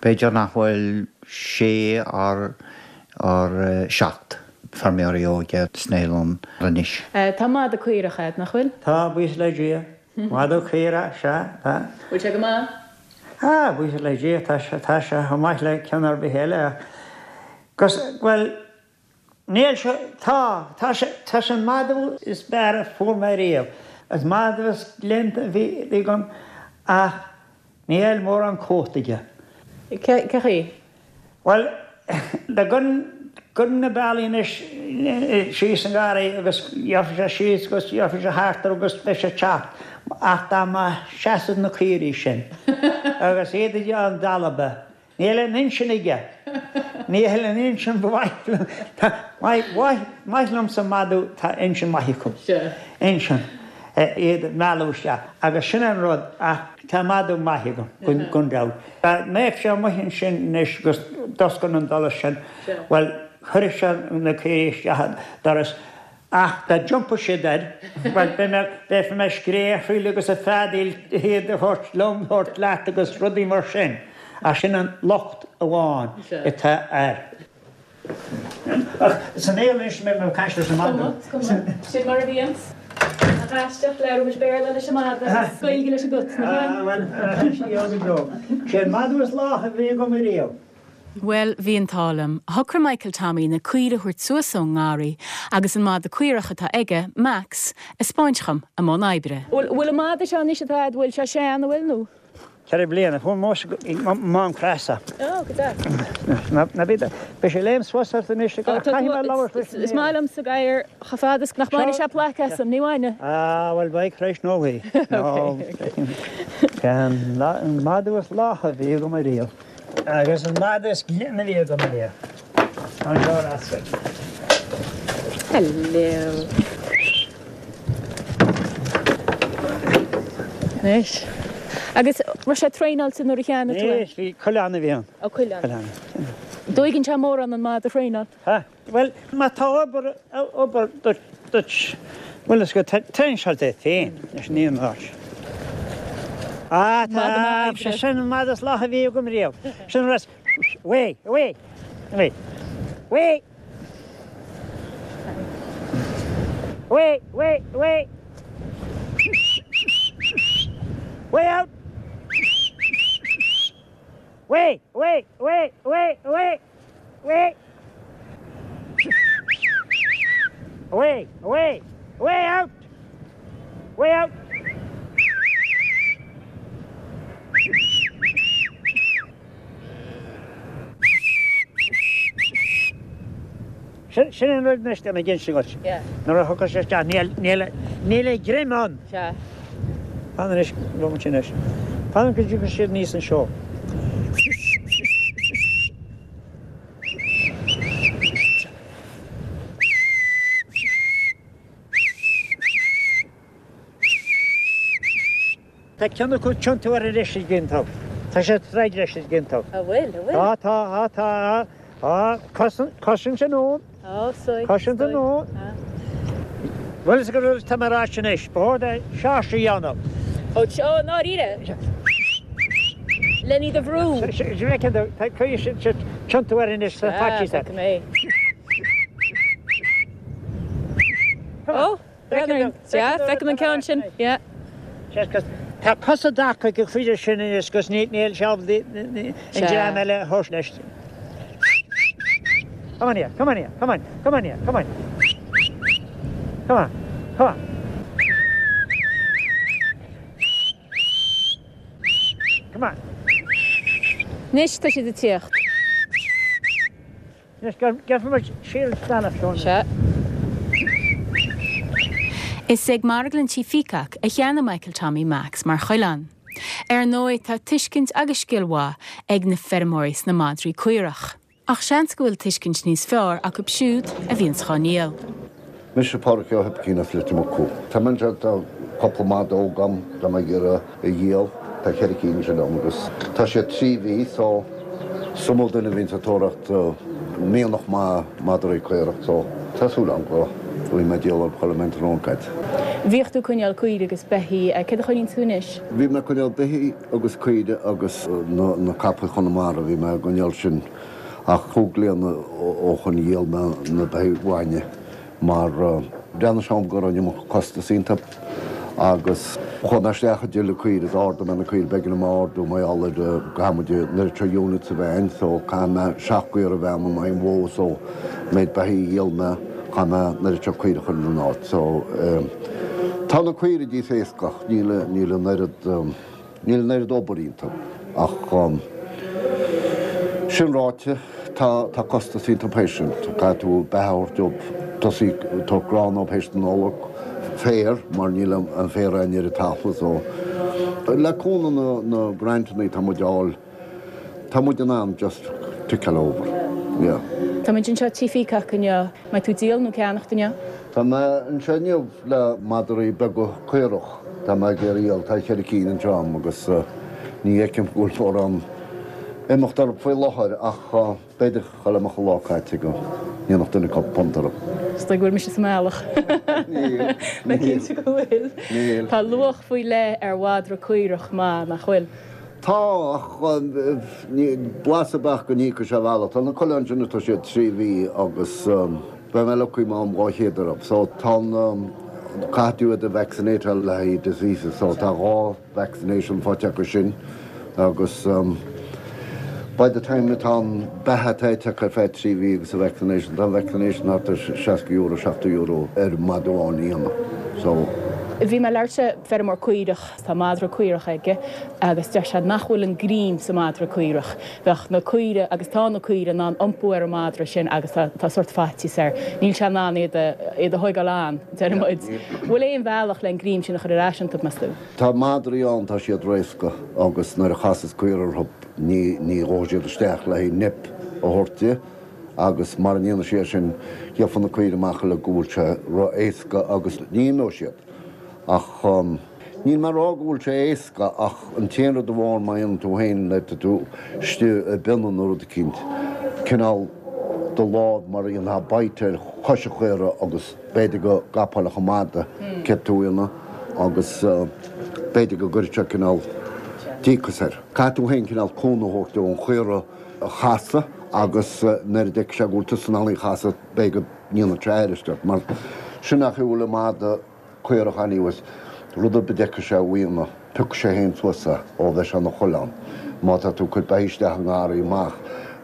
B'fhéidir nach bhfuil sé or 7 feirmeoirí óga sna hoileán anois. Tá madadh caorach a'd, nach bhfuil? Tá, buíochas le Dia. Madadh caorach, sea, tá. Bhfuil sé go maith? Ah, buíochas le Dia, tá sé, tá sé chomh maith le ceann ar bith eile ach, 'gus, bhuel, Níl sé, tá, tá sé, tá sé an madadh is fearr a fuair mé riamh. Is madadh is glionta a bhí agam ach níl mórán cumhachta aige. Cé chaoi? Bhuel, dá gcuirfinn na bealaí anois síos an garraí agus gheobhaidh sé síos agus gheobhaidh sé thart air agus beidh sé ag teacht ach dá mba seasamh na caoirigh sin agus iad ag déanamh dalba Níl aon intinn aige. Níl aon intinn ba mhaith liom. Maith liomsa madadh tá intinn maith acu. Intinn. Iad a mhealladh isteach. Agus sin an rud ach tá madadh maith agam, gan dabht. Dá mbeadh sé amuigh ansin anois agus d'oscail an doras sin, bhuel, chuirfeadh sé na caoirigh isteach an doras. Ach dá dtiompódh siad air, bhuel, beidh mé, beidh mé ag scréachaíl agus ag feadaíl iad a thabhairt liom, a thabhairt leat agus rudaí mar sin. Ach sin an locht amháin atá air. Ach san aer anois, mé ag caint leis an madadh. Is cuma, sin mar a bhíonns. Nach aisteach, labhraímid Béarla leis an madadh agus Gaeilge leis an gcat, nach ea? Ah, bhuel, sin é go deo. Sé an madadh is lách a bhí agam ariamh. Bhuel, bhí an t-ádh liom. Shocraigh Michael Tommy na caoirigh a thabhairt suas ón ngarraí agus an madadh caorach atá aige, Max, a 'speáint dhom i mbun oibre. Bhfuil an madadh seo anois atá agat, bhfuil sé sean, an bhfuil, nó? 4 bliana. Fuair mise i Mám Creasa. Ó, go deas. Ná bí, beidh sé ag léim suas ort anois, caithfidh mé labhairt leis an Is maith liomsa gadhar chomh fada is nach mbainfidh sé plaic asam, ní bhainfidh. Ah, bhuel, beidh tar éis nóchaí. Nó, an madadh is lách a bhí agam ariamh. Agus an madadh is glaine a bhí agam ariamh. Anseo ar ais. Hello. Anois. Agus raibh sé traenáilte nuair a cheannaigh tú é? Ní, bhí coileán a bhí ann. Ó, coileán. Coileán. An dtóigeann sé mórán an madadh a thraenáil? Ha? Bhuel, má tá obair, obair duit, duit, bhuel is go traenáil é féin leis an aon áit. Ah, tá, sé sin an madadh is lách a bhí agam riamh. Sin an rud, away, away, away, away, away, away, away, way out, away, away, away, away, away. Away! Away! Away! Away out! Way out! Sin an rud anois ag inse duit. Nuair a thiocfas sé isteach níl a ghreim ann. Fan anois, bhfuil sin anois. Fan go dtiocfaidh siad aníos anseo. Tá ceann acu ag tiontú air anois ag iontú. Tá sé ag troid leis ag iontú. An bhfuil, an bhfuil? Tá, tá, tá, tá. Cosaint anonn. Ó, soigh, Cosaint anonn. Bhuel, is go raibh tá mé ar ais anois. Ba chóir é seáirse a dhéanamh. Ó, ó, i ndáiríre? Len iad a bhrú. Tiontú air anois sa faitíos air. Ó, sea, feicim an ceann sin, yeah. Tá cosa dtaca ag an chuid sin anois agus níl sé ábalta an dream eile a thabhairt leis. Come on here, come on here, come on, come on here, come on. Come on, come on. Come on. Anois tá siad ag tíocht. Anois gheobhaidh muid siar an bealach seo. Sea. Is ag Marglann Tí Pheacock a cheannaigh Michael Tommy Max mar choileán. Ar ndóigh tá tuiscint agus scil mhaith ag na feirmeoirí sna madraí caorach. Ach seans go bhfuil tuiscint níos fearr acu siúd a bhíonns dhá ndíol. Mise Pádraig Ó hOibicín as Leitir Mucú. Tá mé anseo, tá cúpla madadh óg agam, tá mé ag iarraidh a dhíol. Tá cheithre cinn ansin agam agus tá siad 3 mhí so is iomaí duine a bhíonns ag tóraíocht mianach maith madraí caorach so tá súil agam go bhfaighidh mé díol orthu chuile mbeidh an tráthnóna caite. Bhíodh tú ag coinneáil caoirigh agus beithígh, céard a choinníonn tú anois? Bhí mé ag coinneáil beithígh agus caoire agus na capaill Chonamara, bhí mé ag coinneáil sin ach cúig bliana ó shoin dhíol mé na beithígh bhainne mar bhreathnaigh sé dhom go raibh an iomarca costas iontu agus chuaigh mé isteach ag díol caoire, d'ardaigh mé na caoire, b'éigean dom a ardú mar gheall ar go gcaithfidh muid an oiread seo units sa veain so caithfidh mé seacht gcaora a bheith agam in aghaidh an bhó so an méid beithígh a dhíol mé chaith mé an oiread seo caoire a chur ina n-áit so tá na caoire níos éasca ach níl níl an oiread níl an oiread obair iontu ach sin ráite tá tá costas iontu théis sin. Caithfidh tú beatha a thabhairt dóibh, tosaí ag tabhairt grán dóibh théis na Nollag, féar mar níl an féar ann ar an talamh so le cúnamh na na grantanna atá muid a fháil tá muid in ann just tick-áil over yeah. Tá muid anseo Tí Pheacock inniu. Mbeidh tú ag díol nó ag ceannacht inniu? Tá mé anseo inniu le madraí beaga caorach. Tá mé ag iarraidh a dhíol. Tá cheithre cinn anseo agam agus ní fheicim go bhfuil mórán imeacht orthu faoi láthair ach b'fhéidir chuile mbeadh an lá caite go ndéanfadh duine cúpla punt orthu. Is dóigh go bhfuil mise sa mbealach. Níl. Mé cinnte go bhfuil. Níl. Tá luach faoi leith ar mhadra caorach maith, nach bhfuil? Tá, ach blas ar bith go n-íocfaidh sé a bhealach. Tá na coileáin sin, tá siad 3 mhí agus beidh mé lucky má fhaighim 200 orthu. So tá an, caithfidh tú iad a vaccinateáil le haghaidh diseases so tá dhá vaccination faighte acu sin agus by the time atá an beatha atá ite acu ar feadh 3 mhí agus an vaccination, tá an vaccination thart ar €60, €70 ar mhadadh amháin a dhéanamh. So. Bhí mé ag labhairt le feirmeoir caorach. Tá madra caorach aige agus deir sé nach bhfuil an greim sa madra caorach. Bheadh na caoire, agus tá na caoire, in ann iompú ar an madra sin agus tá tá sórt faitíos air. Níl sé in ann iad a iad a thóigeáil ann, deir muid. Bhfuil aon bhealach le an greim sin a chur ar ais iontu, meas tú? Tá madraí ann, tá siad réasca agus nuair a chasas caora orthu ní ní ghabhfaidh siad isteach le haghaidh nip a thabhairt di agus mara ndéanfaidh sé sin gheobhaidh na caoire amach uilig go bhfuil sé ró-éasca agus ní imeoidh siad. Ach níl mé ag rá go bhfuil sé éasca ach an t-aon rud amháin má dhéanann tú féin nuair atá tú istigh i bpionna nó rud eicínt, cineál do lámh mar a dhéanfá bite ar chois an chaora agus b'fhéidir go gcapáilfeadh an madadh céard tú a dhéanamh agus b'fhéidir go gcuirfeadh sé cineál díocas air. Caithfidh tú féin cineál cúnamh a thabhairt dó an chaora a chasadh agus nuair a d'fheicfidh sé go bhfuil tusa in ann í a chasadh b'fhéidir go ndéanfaidh sé airist ort mar sin an chaoi a bhfuil an madadh caorach anyways, rud ar bith a d'fheicfidh sé a dhéanamh, piocfaidh sé féin suas é ó bheith sé ina choileán. Má tá tú ag cur beithígh isteach i ngarraí amach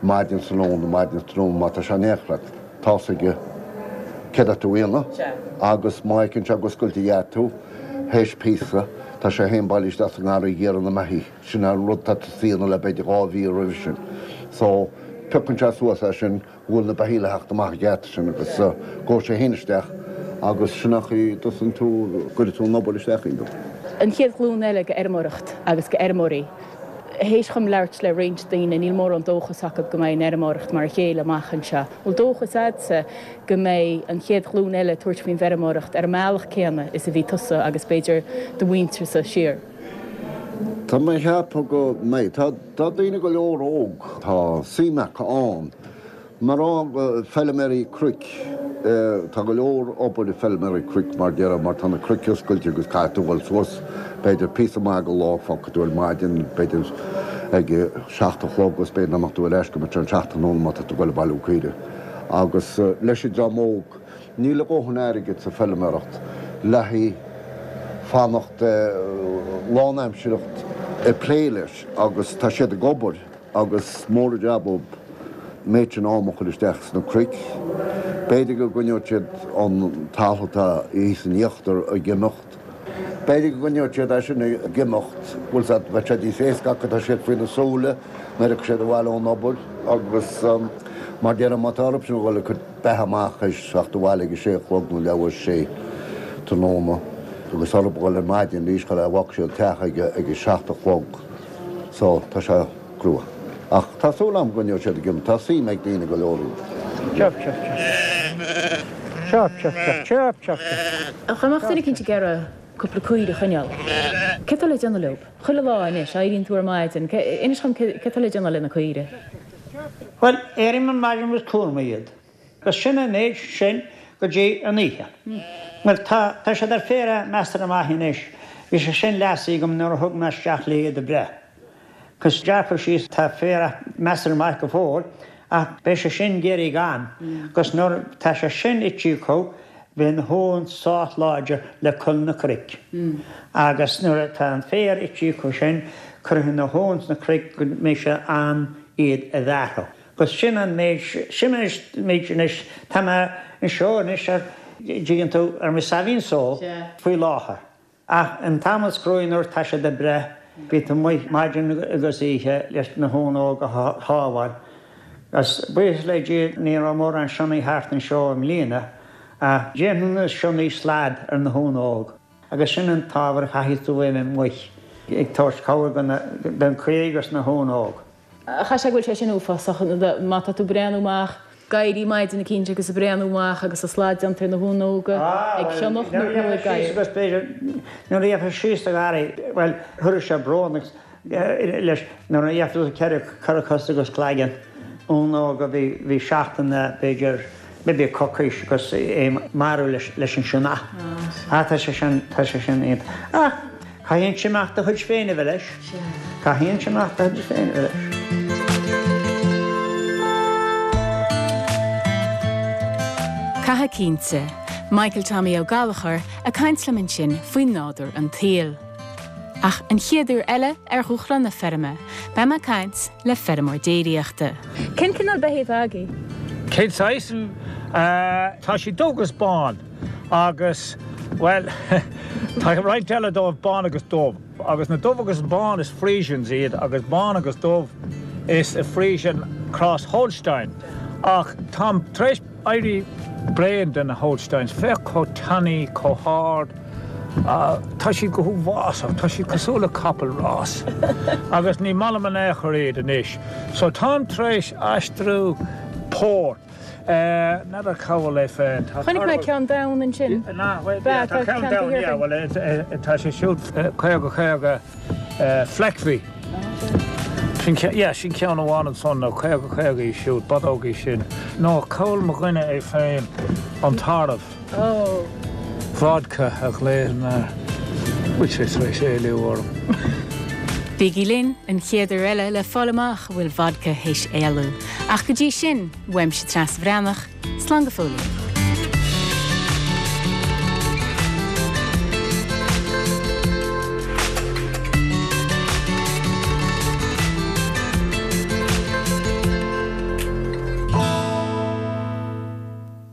maidin is tráthnóna, maidin is tráthnóna, má tá sé in éineacht leat, tá's aige céard atá tú a dhéanamh agus má fheiceann sé go scoiltfidh a dhath tú, théis píosa, tá sé féin bailithe isteach sa ngarraí ag iarraidh na mbeithígh. Sin an rud atá tusa a dhéanamh le b'fhéidir 2 mhí roimhe sin. So, piocann sé suas é sin. go bhfuil na beithígh le theacht amach an geata sin agus gabhfaidh sé féin isteach agus sin an chaoi a dtosaíonn tú, gcuireann tú an obair isteach iontu. An chéad ghlúin eile go fheirmeoireacht agus go fheirmeoirí. Théis dhom labhairt le roinnt daoine, níl mórán dóchas acu go mbeidh an fheirmeoireacht mar a chéile amach anseo. Bhfuil dóchas a'dsa go mbeidh an chéad ghlúin eile ag tabhairt faoin bhfeirmeoireacht ar an mbealach céanna is a bhí tusa agus b'fhéidir do mhuintirsa siar? Tá mé ag ceapadh go mbeidh. Tá tá daoine go leor óg, tá suim acu ann. Mar feilméaraí cnoic, tá go leor obair ag feilméaraí cnoic mar déarfá mar tá na cnoic oscailte agus caithfidh tú dhul suas b'fhéidir píosa maith de lá, fágfaidh tú ar maidin b'fhéidir. ag a 7 a chlog agus b'fhéidir nach mbeadh tú ar ais go mbeadh sé an 7 tráthnóna má tá tú ag goil ag bailiú caoirigh. Agus leis an dream óg, níl a dhóthain airgid sa feilméaracht le haghaidh fanacht lánaimseartha ag plé leis agus tá siad ag obair agus mór an jab dóibh an méid sin am a chur isteach sna cnoic. B'fhéidir go gcoinneoidh siad an talamh atá thíos in íochtar ag imeacht. B'fhéidir go gcoinneoidh siad é sin ag imeacht, bhfuil 's a'd, bheadh sé níos éasca acu, tá siad faoina súile nuair a thiocfaidh siad abhaile ón obair agus mar déarfainn má tá orthu sin a dhul ag cur beatha amach théis teacht abhaile ag a sé a chlog nó leathuair théis sé tráthnóna agus orthu a dhul ar maidin arís chuile bhfágfaidh siad an teach ag a 7 a chlog so tá sé crua. Ach tá súil agam go gcoinneoidh siad ag imeacht, tá suim ag daoine go leor iontu. Chirp chirp chirp. Chirp chirp chirp chirp chirp chirp. Dá mbeadh duine eicínt ag iarraidh cúpla caoire a choinneáil, céard atá le déanamh leob? Chuile lá anois, éiríonn tú ar maidin, inis dhom céard atá le déanamh le na caoire? Bhuel, éirím ar maidin agus cuarann mé iad. Agus sin an méid sin go dtí an oíche. Bhuel, tá, tá siad ar féar measartha maith anois. Bhí sé sin leasaithe agam nuair a thug mé isteach le iad a breith. Agus gearrtha síos, tá féar measartha maith go fóill, ach beidh sé sin ag éirí gann. Agus nuair tá sé sin ite acu, beidh na huain sách láidir le cur na cnoic. Agus nuair atá an féar ite acu sin, cuirfidh na huain sna cnoic go mbeidh sé am iad a bhearthadh. Agus sin an méid, sin an méid anois, tá mé anseo anois ar, dtuigeann tú, ar mo saimhín só faoi láthair. Ach an t-am is cruaidh nuair tá siad ag breith, bíonn tú amuigh maidin agus oíche leis na huain óga a shábháil. Agus buíochas le Dia ní raibh mórán sionnaigh thart anseo i mbliana, ach déanann na sionnaigh slad ar na huain óg. Agus sin an t-ábhar a chaithfidh tú a bheith amuigh ag tabhairt cabhair don caoirigh agus na huain óg. Chaithfeadh sé go bhfuil sé sin uafásach má tá tú ag breathnú amach, ag éirí maidin eicínt agus ag breathnú amach agus an slad déanta ar na huain óga ag sionnach nó nó ag gadhar. Agus b'fhéidir nuair a gheofá síos do gharraí, bhuel, chuirfeadh sé brón agus leis nuair a gheofá tú ceithre ceithre cos agus cloigeann uan óg a bhí bhí seachtain b'fhéidir maybe coicís agus é marbh leis leis an sionnach. Ah tá sé sin tá sé sin iontach. Ach Caithfidh an sionnach do chuid féin a bheith leis. Caithfidh an sionnach do chuid féin a bheith leis. Caithfidh cinnte. Michael Tommy Ó Gallchóir ag caint liom ansin faoi nádúr an tsaoil. Ach an chéad uair eile ar Dhúshlán na Feirme, beidh mé ag caint le feirmeoir déiríochta. Cén cineál beithígh atá agaibh? Cén saghas? Tá siad dubh agus bán. Agus, bhuel, tá roinnt eile dóibh bán agus dubh. Agus na dubh agus bán is Friesians iad agus bán agus dubh is Friesian cross Holstein. Ach táim tar éis éirí bréan de na Holsteins. Féach chomh tanaí, chomh hard. Tá siad go huafásach. Tá siad cosúil le capall rás. Agus ní maith liom in aon chor iad anois. So táim tar éis aistriú pór. N'fheadar cá bhfuil é féin. Tá Chonaic mé ceann donn ansin. Bea, tá ceann donn, yeah, bhuel, tá sé siúd 50 50 Fleckvieh. Sin, yeah, sin ceann amháin ansan, nó 50 50 í siúd, bodóg í sin. Nó cá bhfuil mo dhuine é féin, an tarbh. Vodka a ghlaonn air. Bhfuil sé tar éis éalú orm? Bígí linn an chéad uair eile le fáil amach an bhfuil Vodka théis éalú. Ach go dtí sin, uaimse Treasa Bhreathnach, slán go fóillín.